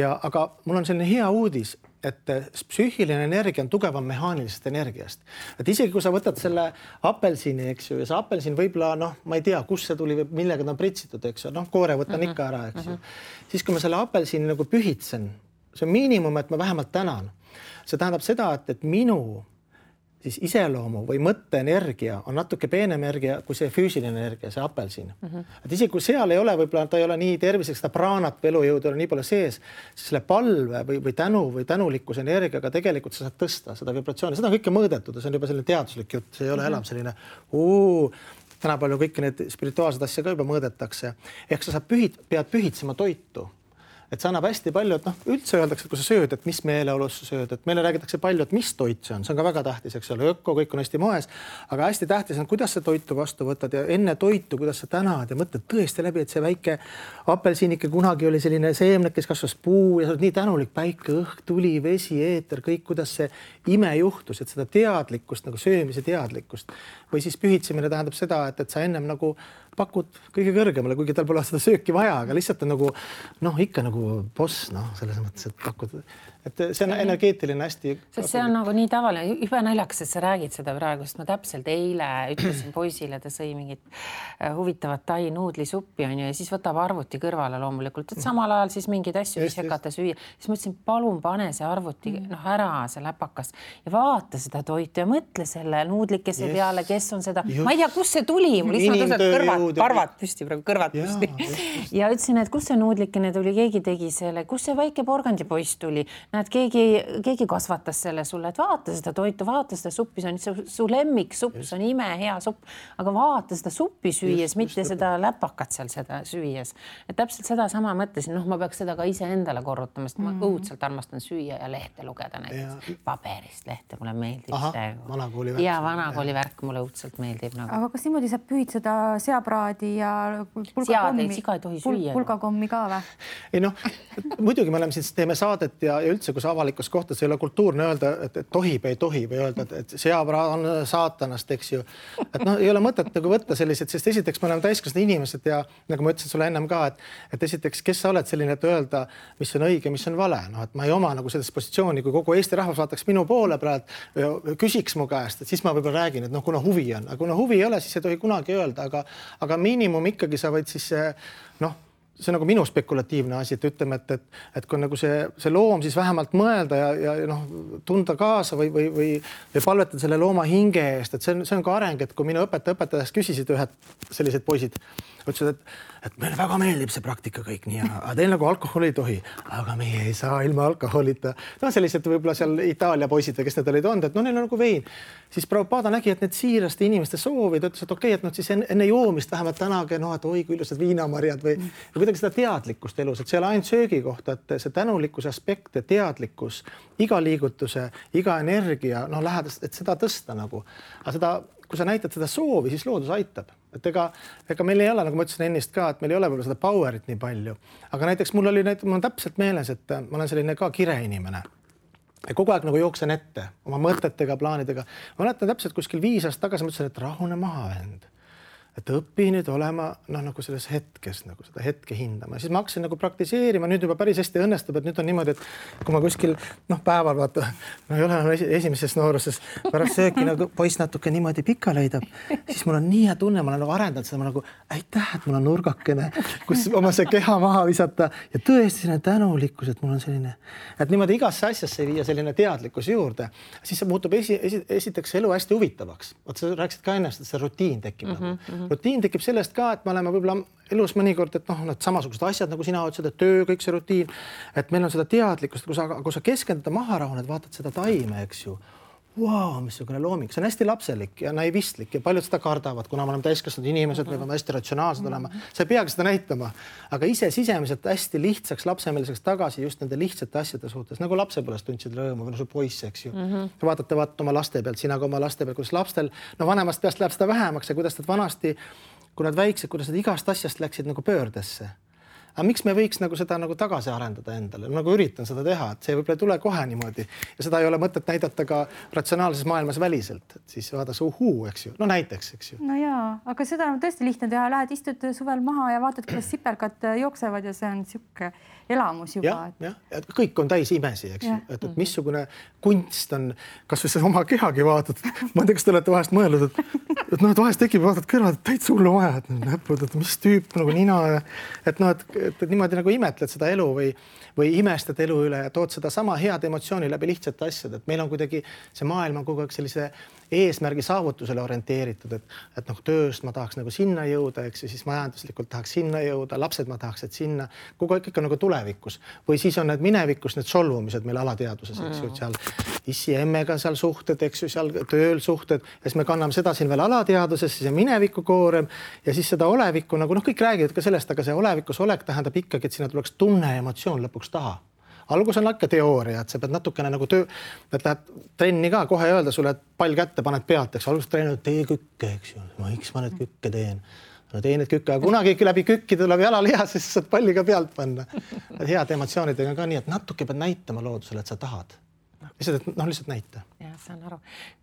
Aga mul on selline hea uudis, et psüühiline energia on tugevam mehaanilisest energiast. Et isegi kui sa võtad selle apelsini, eks ju, ja see apelsin võib-olla, ma ei tea, kus see tuli või millega ta on pritsitud, eks ju, koore võtan ikka ära, eks ju. Siis kui ma selle apelsini nagu pühitsen, see on miinimum, et ma vähemalt tänan. See tähendab seda, et minu siis iseloomu või mõtteenergia on natuke peenem energia kui see füüsiline energia, see apelsin. Et isegi kui seal ei ole, võib-olla ta ei ole nii terviseks, seda praanat või elujõudu ei ole nii palju sees, siis selle palve või tänu või tänulikkuse energiaga tegelikult sa saad tõsta seda vibratsiooni. Seda on kõike mõõdetud ja see on juba selline teaduslik jutt, see ei ole enam selline täna palju kõiki need spirituaalsed asja ka juba mõõdetakse. Ehk sa pead pühitsema toitu. Et see annab hästi palju, et üldse öeldakse, et kui sa sööd, et mis meeleolus sa sööd, et meile räägitakse palju, et mis toit see on ka väga tähtis, eks ole, öko, kõik on hästi moes, aga hästi tähtis on, kuidas sa toitu vastu võtad ja enne toitu, kuidas sa tänad ja mõtled tõesti läbi, et see väike apelsinike kunagi oli selline seemnek, kes kasvas puu ja sa oled nii tänulik, päike, õhk, tuli, vesi, eeter, kõik, kuidas see ime juhtus, et seda teadlikkust, nagu söömise teadlikkust või siis pühitsemine tähendab seda, et sa ennem nagu pakud kõige kõrgemale, kuigi tal pole seda sööki vaja, aga lihtsalt on nagu ikka nagu boss, selles mõttes, et pakud, et see on energeetiline hästi. Sest see on nagu nii tavaline, juba naljakas, et sa räägid seda praegu, sest ma täpselt eile ütlesin poisile, ta sõi mingit huvitavat tai nuudlisuppi on ju, ja siis võtab arvuti kõrvale loomulikult, et samal ajal siis mingeid asju sekata süüa. Siis mõtlesin, palun pane see arvuti ära, see läpakas ja vaata seda toitu ja mõtle selle nuudlikese peale, kes on seda. Ma ei tea, kus see tuli, mul lihtsalt karvad püsti, praegu kõrvad püsti. Ja ütlesin, et kus see nuudlikene tuli, keegi tegi selle, kus see väike porgandipoiss tuli. Näed, keegi kasvatas selle sulle, et vaata seda toitu, vaata seda suppi, see on su lemmik supp, see on ime, hea supp, aga vaata seda suppi süües, mitte seda läpakat seal seda süües. Et täpselt seda sama mõtlesin, ma peaks seda ka ise endale korrutama, sest ma õudselt armastan süüa ja lehte lugeda näiteks paberist lehte, mulle meeldib see. Vanakooli värk mulle õudselt meeldib. Aga kas niimoodi saab pühitseda seapraadi ja pulgakommi ka või? Ei muidugi me oleme siis teeme saadet ja üldse, kus avalikus kohtas ei ole kultuurne öelda, et tohib, ei tohi või öelda, et seapraad on saatanast, eks ju. Et ei ole mõtet nagu võtta sellised, sest esiteks me oleme täiskasvanud inimesed ja nagu ma ütlesin sulle ennem ka, et esiteks, kes sa oled selline, et öelda, mis on õige, mis on vale. Et ma ei oma nagu selles positsiooni, kui kogu Eesti rahvas vaataks minu poole praegu, küsiks mu käest, et siis ma võib-olla räägin, et kuna huvi on. Aga kuna huvi ei ole, siis ei tohi kunagi öelda, aga miinimum ikkagi sa võid siis see on nagu minu spekulatiivne asi, et ütleme, et kui nagu see loom siis vähemalt mõelda ja tunda kaasa või palvetada selle looma hinge eest, et see on ka areng, et kui minu õpetajast küsisid ühed sellised poisid, ütlesid, et meile väga meeldib see praktika kõik nii, aga teil nagu alkoholi ei tohi, aga meie ei saa ilma alkoholita. Sellised võib-olla seal Itaalia poisid, kes need olid olnud, et neil on nagu vein. Siis Prabhupada nägi, et need siiraste inimeste soovid, ütles, et okei, et siis enne joomist vähemalt tänage, et oi kui ilusad viinamarjad või kuidagi seda teadlikkust elus, et see ei ole ainult söögi kohta, et see tänulikkuse aspekt ja teadlikkus, iga liigutuse, iga energia, lähedast, et seda tõsta nagu. Aga seda, kui sa näitad seda soovi, siis loodus aitab. Et ega meil ei ole, nagu ma ütlesin ennist ka, et meil ei ole võib-olla seda powerit nii palju. Aga näiteks mul on täpselt meeles, et ma olen selline ka kireinimene. Ja kogu aeg nagu jooksen ette oma mõtetega, plaanidega. Ma mäletan täpselt kuskil 5 aastat tagasi, ma ütlesin, et rahune maha, vend. et õpi nüüd olema nagu selles hetkes, nagu seda hetke hindama. Siis ma hakkasin nagu praktiseerima, nüüd juba päris hästi õnnestub, et nüüd on niimoodi, et kui ma kuskil päeval vaata, ei ole esimeses nooruses, pärast sööki nagu poiss natuke niimoodi pika leidab, siis mul on nii hea tunne, ma olen nagu arendanud seda, ma nagu aitäh, et mul on nurgakene, kus oma see keha maha visata ja tõesti selline tänulikkus, et mul on selline, et niimoodi igasse asjasse viia selline teadlikkus juurde, siis see muutub esiteks elu hästi huvitavaks. Oot, sa rääkisid ka ennast, et see rutiin tekib. Rutiin tekib sellest ka, et me oleme võib-olla elus mõnikord, et need samasugused asjad, nagu sina ütlesid, et töö, kõik see rutiin, et meil on seda teadlikkust, kui sa keskendada maha rahuned, vaatad seda taime, eks ju. Wow, missugune looming, see on hästi lapselik ja naivistlik ja paljud seda kardavad, kuna me oleme täiskasvanud inimesed, me peame hästi ratsionaalsed olema. Sa ei peagi seda näitama, aga ise sisemiselt hästi lihtsaks, lapsemeliseks tagasi just nende lihtsate asjade suhtes, nagu lapsepõlvest tundsid rõõmu või su poiss, eks ju. Vaatate oma laste pealt, sina ka oma laste pealt, kuidas lapstel, vanemast peast läheb seda vähemaks ja kuidas nad vanasti, kui nad väiksed, kuidas nad igast asjast läksid nagu pöördesse. Aga miks me võiks nagu seda nagu tagasi arendada endale? Nagu üritan seda teha, et see võib-olla ei tule kohe niimoodi ja seda ei ole mõtet näidata ka ratsionaalses maailmas väliselt, et siis vaadaks eks ju. No näiteks, eks ju. No jaa, aga seda on tõesti lihtne teha. Lähed istud suvel maha ja vaatad, kuidas sipelgad jooksevad ja see on siuke elamus juba. Ja, kõik on täis imesi, eks ju. Et missugune kunst on, kas või oma kehagi vaatad. Ma ei tea, kas te olete vahest mõelnud, et vahest tekib, vaatad kõrvad, et täitsa hullu vaja, et mis tüüp nagu nina, et niimoodi nagu imetled seda elu või imestad elu üle ja tood seda sama head emotsiooni läbi lihtsate asjad, et meil on kuidagi see maailm on kogu aeg sellise eesmärgi saavutusele orienteeritud, et tööst ma tahaks nagu sinna jõuda, eks ju, siis majanduslikult tahaks sinna jõuda, lapsed ma tahaks, et sinna kogu aeg ikka nagu tulevikus või siis on need minevikus need solvumised meil alateaduses, eks ju, seal issi ja emmega seal suhted, eks ju, seal tööl suhted ja siis me kanname seda siin veel alateaduses, siis on mineviku koorem ja siis seda olevikku nagu kõik räägivad ka sellest, aga see olevikus olek tähendab ikkagi, et sinna tuleks tunne ja emotsioon lõpuks taha. Algus on ikka teooria, et sa pead natukene nagu et lähed trenni ka kohe öelda sulle, et pall kätte paned pealt, eks algus treenid, tee kükke, eks ju. Miks ma need kükke teen? No tee need kükke, aga kunagi läbi kükki tuleb jalalihas, siis saad palli ka pealt panna. Head emotsioonidega ka nii, et natuke pead näitama loodusele, et sa tahad. Lihtsalt näita. Ja, saan aru.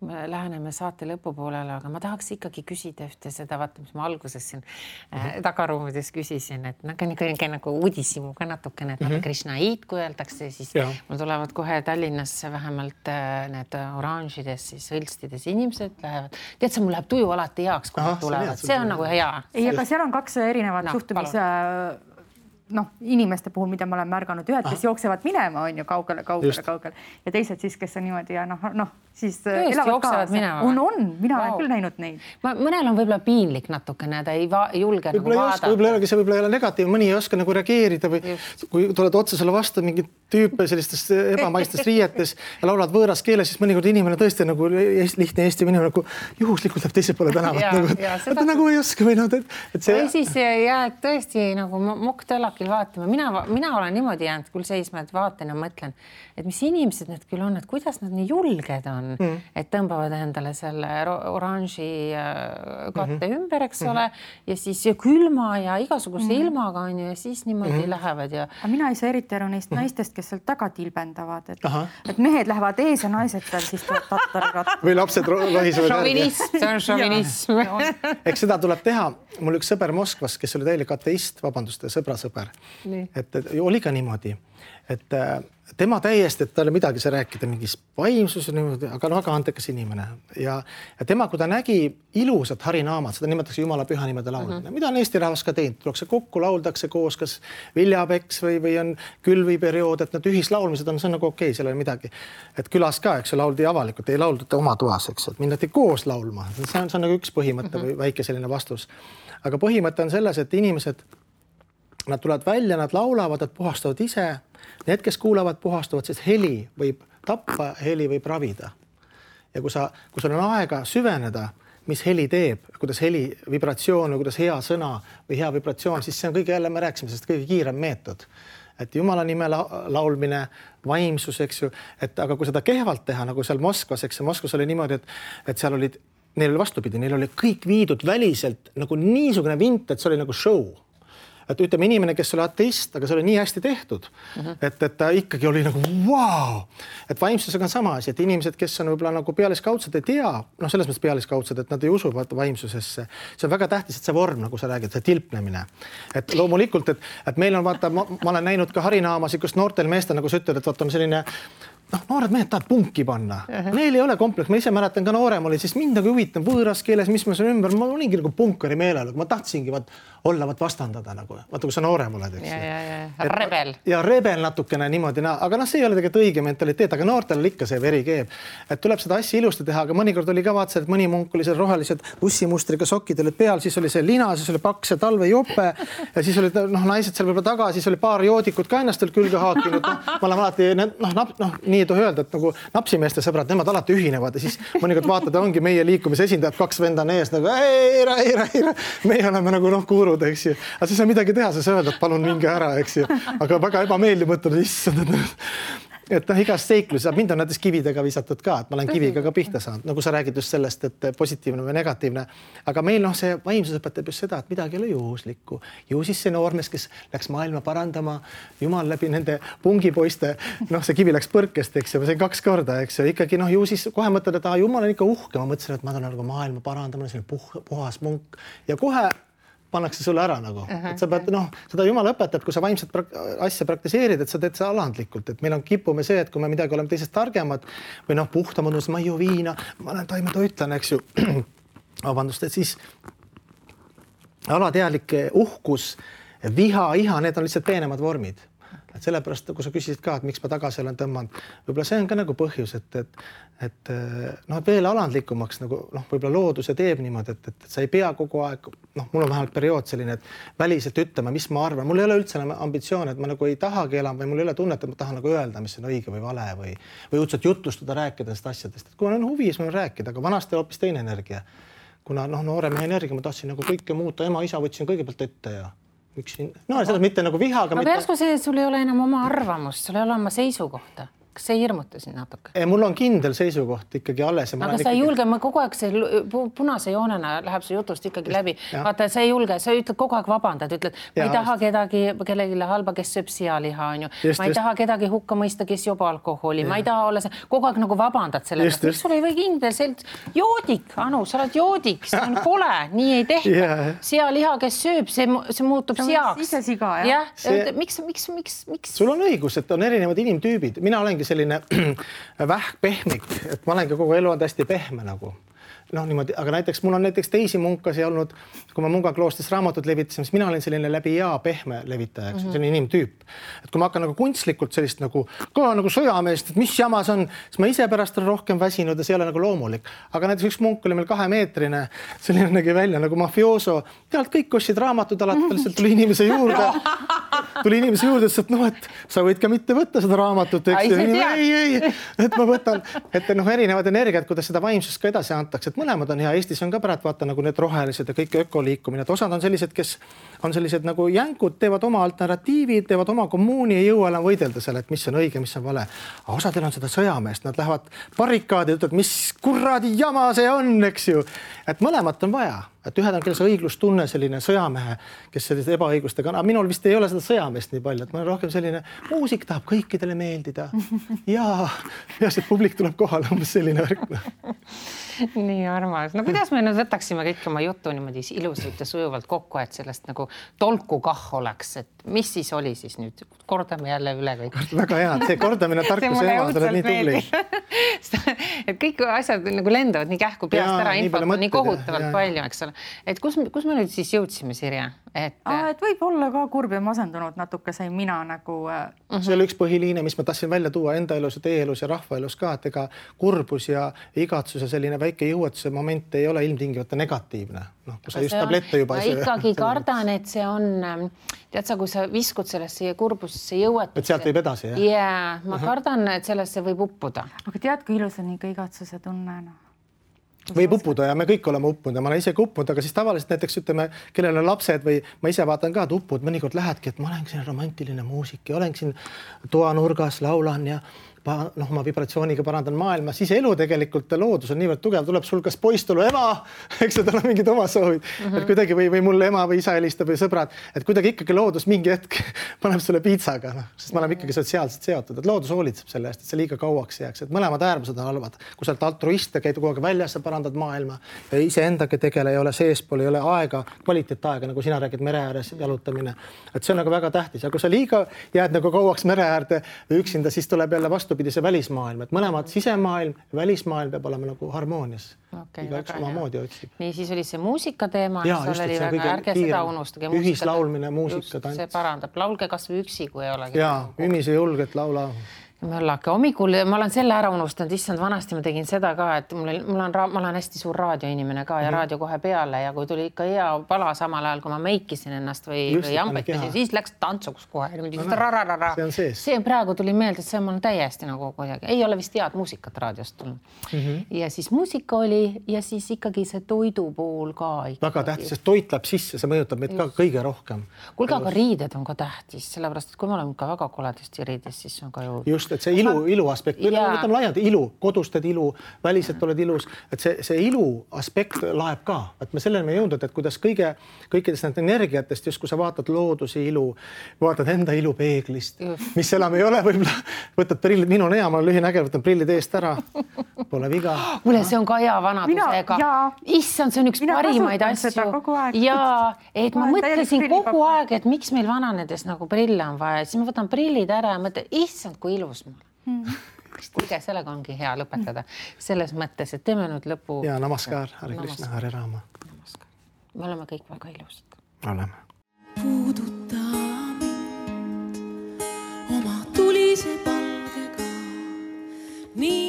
Me läheneme saate lõpupoolele, aga ma tahaks ikkagi küsida ühte seda, vaata, mis ma alguses siin tagaruumides küsisin, et nagu uudisimu ka natukene, et Krishnaid, kui öeldakse, siis mul tulevad kohe Tallinnasse vähemalt need oranžides, siis hõlstides inimesed lähevad. Tead, see mul läheb tuju alati heaks, kui nad tulevad. See on nagu hea. Ei, aga seal on kaks erinevat suhtumis inimeste puhul, mida ma olen märganud, ühed, kes jooksevad minema, on ju kaugele ja teised siis, kes on niimoodi ja siis elavad kaasa. On, mina olen küll näinud neid. Mõnel on võib-olla piinlik natukene, ta ei julge nagu vaadata. Võib-olla ei ole negatiiv, mõni ei oska nagu reageerida või kui tuled otsa sulle vastu mingid tüüpe sellistes ebamaistes riietes ja laulad võõras keeles, siis mõnikord inimene tõesti nagu lihtne Eesti inimene nagu juhuslikult läheb teise poole tänavat. Ta nagu ei oska või siis jääd tõesti nagu mokk-tölakil vaatama. Mina olen niimoodi jäänud küll seisma, et vaatan ja mõtlen, et mis inimesed need küll on, et kuidas nad nii julged on, et tõmbavad endale selle oranži katte ümber, eks ole, ja siis külma ja igasuguse ilmaga on ju ja siis niimoodi lähevad. Aga mina ei saa eriti aru neist naistest, kes seal taga tilbendavad, et mehed lähevad ees ja naised seal siis tattarirat. Või lapsed lohisevad šovinism, see on šovinism. Eks seda tuleb teha. Mul üks sõber Moskvas, kes oli täielik ateist, vabandust, sõber. Et oli ka niimoodi, et tema täiesti, et talle midagi sa rääkida mingis vaimsus, aga väga antekas inimene. Ja tema, kui ta nägi ilusat harinaamat, seda nimetatakse Jumala püha nimede laulmine. Mida on Eesti rahvas ka teinud? Tullakse kokku, lauldakse koos, kas viljapeks või on külviperiood, et need ühislaulmised on, see on nagu okei, seal ei midagi. Et külas ka, eks lauldi avalikult, ei lauldud oma toas, eks, et minnati koos laulma. See on nagu üks põhimõte või väike selline vastus. Aga põhimõte on selles, et inimesed, nad tulevad välja, nad laulavad, nad puhastavad ise. Need, kes kuulavad, puhastavad, sest heli võib tappa, heli võib ravida. Ja kui sul on aega süveneda, mis heli teeb, kuidas heli vibratsioon või kuidas hea sõna või hea vibratsioon, siis see on kõige jälle, me rääksime sellest kõige kiirem meetod. Et Jumala nime laulmine, vaimsus, eks ju, aga kui seda kehvalt teha, nagu seal Moskvas, eks Moskvas oli niimoodi, et seal olid, neil oli vastupidi, neil oli kõik viidud väliselt nagu niisugune vint, et see oli nagu show. et ütleme inimene, kes oli ateist, aga see oli nii hästi tehtud, et ta ikkagi oli nagu vau. Et vaimsusega on sama asi, et inimesed, kes on võib-olla nagu pealiskaudsed, ei tea, noh, selles mõttes pealiskaudsed, et nad ei usu vaimsusesse. See on väga tähtis, et see vorm, nagu sa räägid, see tilpnemine. Et loomulikult, et meil on vaata, ma olen näinud ka harinaamasid, kus noortel meestel, nagu sa ütled, et vaata on selline noored mehed tahavad punki panna. Neil ei ole kompleks. Ma ise mäletan ka noorem oli, siis mind nagu huvitav võõras keeles, mis ma seal ümber, ma olingi nagu punkari meelel, ma tahtsingi olla vastandada nagu. Vaata, kui sa noorem oled, eks. Rebel. Ja rebel natukene niimoodi, aga see ei ole tegelikult õige mentaliteet, aga noortel oli ikka see veri keeb. Et tuleb seda asja ilusti teha, aga mõnikord oli ka vaatsa, et mõni munk oli seal rohelised ussimustriga sokid olid peal, siis oli see lina, siis oli paks ja talvejope ja siis olid naised seal võib-olla taga, siis oli paar joodikut ka ennast veel külge haakinud. Ma olen alati, nii ei tohi öelda, et nagu napsimeeste sõbrad, nemad alati ühinevad ja siis mõnikord vaatad, ongi meie liikumise esindajad, 2 vendan ees nagu ei, meie oleme nagu kuurud, eks ju. Aga siis on midagi teha, sa öelda, et palun minge ära, eks ju. Aga väga ebameeldiv mõtled, issand, et igas seiklus, mind on näiteks kividega visatud ka, et ma olen kiviga ka pihta saanud, nagu sa räägid just sellest, et positiivne või negatiivne. Aga meil see vaimsus õpetab just seda, et midagi ei ole juhuslikku. Ju siis see noormees, kes läks maailma parandama, jumal läbi nende pungipoiste, see kivi läks põrkest, eks ju, see 2 korda, eks ju, ikkagi ju siis kohe mõtled, et jumal on ikka uhke, ma mõtlesin, et ma tulen nagu maailma parandama, see on puhas munk ja kohe pannakse sulle ära nagu, et sa pead, seda jumal õpetab, kui sa vaimset asja praktiseerid, et sa teed seda alandlikult, et meil on kipume see, et kui me midagi oleme teisest targemad või puhtamad, ma ei joo viina, ma olen taimetoitlane, eks ju, vabandust, et siis alateadlik uhkus, viha, iha, need on lihtsalt peenemad vormid. Et sellepärast, kui sa küsisid ka, et miks ma tagasi olen tõmmanud, võib-olla see on ka nagu põhjus, et veel alandlikumaks nagu võib-olla looduse teeb niimoodi, et sa ei pea kogu aeg, mul on vähemalt periood selline, et väliselt ütlema, mis ma arvan. Mul ei ole üldse ambitsioon, et ma nagu ei tahagi elama või mul ei ole tunnet, et ma tahan nagu öelda, mis on õige või vale või üldse jutustada, rääkida nendest asjadest. Et kui on huvi, siis ma rääkida, aga vanasti hoopis teine energia. Kuna noore mehe energia, ma tahtsin nagu kõike muuta, ema, isa võtsin kõigepealt ette ja selles mitte nagu vihaga. Aga järsku see, sul ei ole enam oma arvamust, sul ei ole oma seisukohta. Kas see hirmuta siin natuke? Mul on kindel seisukoht ikkagi alles. Aga sa ei julge, ma kogu aeg see punase joonena läheb see jutust ikkagi läbi. Vaata, sa ei julge, sa ütled kogu aeg vabandad, ütled, ma ei taha kellelegi halba, kes sööb sealiha, on ju. Ma ei taha kedagi hukka mõista, kes joob alkoholi. Ma ei taha olla see, kogu aeg nagu vabandad selle. Miks sul ei või kindel joodik, Anu, sa oled joodik, see on kole, nii ei tehta. Sealiha, kes sööb, see muutub seaks. Ise siga, jah. Miks? Sul on õigus, et on erinevad inimtüübid. Mina olengi selline vähkpehmik, et ma olen ka kogu elu hästi pehme nagu. Niimoodi, aga näiteks mul on teisi munkasi olnud, kui ma Munga kloostris raamatut levitasin, siis mina olin selline läbi pehme levitaja, selline inimtüüp. Et kui ma hakkan nagu kunstlikult sellist nagu sõjameest, et mis jamas on, siis ma ise pärast olen rohkem väsinud ja see ei ole nagu loomulik. Aga näiteks üks munk oli meil 2-meetrine, selline nägi välja nagu mafioso. Tealt kõik ostsid raamatud alati, lihtsalt tuli inimese juurde, et et sa võid ka mitte võtta seda raamatut. Ei, et ma võtan, et erinevad energiat, kuidas seda vaimsust ka edasi antakse. Mõlemad on hea. Eestis on ka pärast vaata nagu need rohelised ja kõik ökoliikumine. Et osad on sellised, kes on sellised nagu jänkud, teevad oma alternatiivid, teevad oma kommuuni, ei jõua enam võidelda selle, et mis on õige, mis on vale. Aga osadel on seda sõjameest, nad lähevad barrikaadi ja ütlevad, mis kuradi jama see on, eks ju. Et mõlemat on vaja. Et ühed on kellel see õiglustunne, selline sõjamehe, kes sellise ebaõigustega on. Aga minul vist ei ole seda sõjameest nii palju, et ma olen rohkem selline muusik tahab kõikidele meeldida. Ja see publik tuleb kohale, umbes selline värk. Nii armas. No kuidas me nüüd võtaksime kõik oma jutu niimoodi ilusalt ja sujuvalt kokku, et sellest nagu tolku kah oleks, et mis siis oli siis nüüd? Kordame jälle üle kõik. Väga hea, see kordamine tarkuse ema, sa oled nii tubli. Et kõik asjad nagu lendavad nii kähku peast ära, infot on nii kohutavalt palju, eks ole. Et kus me nüüd siis jõudsime, Sirje? Et võib olla ka kurb ja masendunud natuke sai mina nagu... See oli üks põhiliine, mis ma tahtsin välja tuua enda elus ja teie elus ja rahva elus ka, et ega kurbus ja igatsus ja selline väike jõuetuse moment ei ole ilmtingivalt negatiivne. Kui sa just tablette juba... Ma ikkagi kardan, et see on... Tead sa, kui sa viskud sellesse kurbusesse jõuetusse... Et sealt võib edasi, jah? Jaa, ma kardan, et sellesse võib uppuda. Aga tead, kui ilus on ikka igatsuse tunne, Võib uppuda ja me kõik oleme uppunud ja ma olen ise uppunud, aga siis tavaliselt näiteks ütleme, kellel on lapsed või ma ise vaatan ka, et uppud mõnikord lähedki, et ma olen siin romantiline muusik ja olen siin toanurgas, laulan ja ma vibratsiooniga parandan maailma, siis elu tegelikult ja loodus on niivõrd tugev, tuleb sul kas poistulu ema, eks tal on mingid oma soovid, et kuidagi või mul ema või isa helistab või sõbrad, et kuidagi ikkagi loodus mingi hetk paneb sulle piitsaga, sest me oleme ikkagi sotsiaalselt seotud, et loodus hoolitseb selle eest, et see liiga kauaks jääks, et mõlemad äärmused on halvad. Kui sa oled altruist ja käid kogu aeg väljas ja parandad maailma ja iseendaga tegele, ei ole seespool, ei ole aega, kvaliteetaega, nagu sina räägid mere ääres jalutamine. Et see on nagu väga tähtis. Ja kui sa liiga jääd nagu kauaks mere äärde või üksinda, siis tuleb jälle vastupidi see välismaailm, et mõlemad sisemaailm ja välismaailm peab olema nagu harmoonias. Igaüks oma moodi otsib. Nii, siis oli see muusika teema, ärge seda unustage. Ühislaulmine, muusika, tants. See parandab. Laulge kas või üksi, kui ei olegi. Jaa, ümise julget laula. Möllake hommikul, ma olen selle ära unustanud, issand, vanasti ma tegin seda ka, et ma olen hästi suur raadioinimene ka ja raadio kohe peale ja kui tuli ikka hea pala samal ajal, kui ma meikisin ennast või jampetasin, siis läks tantsuks kohe. See praegu tuli meelde, et see on täiesti nagu kuidagi. Ei ole vist head muusikat raadiost tulnud. Ja siis muusika oli ja siis ikkagi see toidu pool ka. Väga tähtis, sest toit läheb sisse, see mõjutab meid ka kõige rohkem. Kuulge, aga riided on ka tähtis, sellepärast, et kui me oleme ka väga koledasti riides, siis on ka ju... et see ilu aspekt, võtame laialt ilu, kodustad ilu, väliselt oled ilus, et see ilu aspekt laeb ka, et me sellele me jõudnud, et kuidas kõikidest need energiatest, just kui sa vaatad looduse ilu, vaatad enda ilu peeglist, mis enam ei ole, võib-olla võtad prillid, minu on hea, ma olen lühinägev, võtan prillid eest ära, pole viga. Mulle see on ka hea vanadusega. Issand, see on üks parimaid asju. Ja, et ma mõtlesin kogu aeg, et miks meil vananedes nagu prille on vaja, siis ma võtan prillid ära ja mõtlen, issand, kui ilus mul. Kuulge, sellega ongi hea lõpetada. Selles mõttes, et teeme nüüd lõpu... Ja namaskar, Hare Krishna, Hare Rama. Me oleme kõik väga ilusad. Oleme. Puuduta mind oma tulise palgega. Nii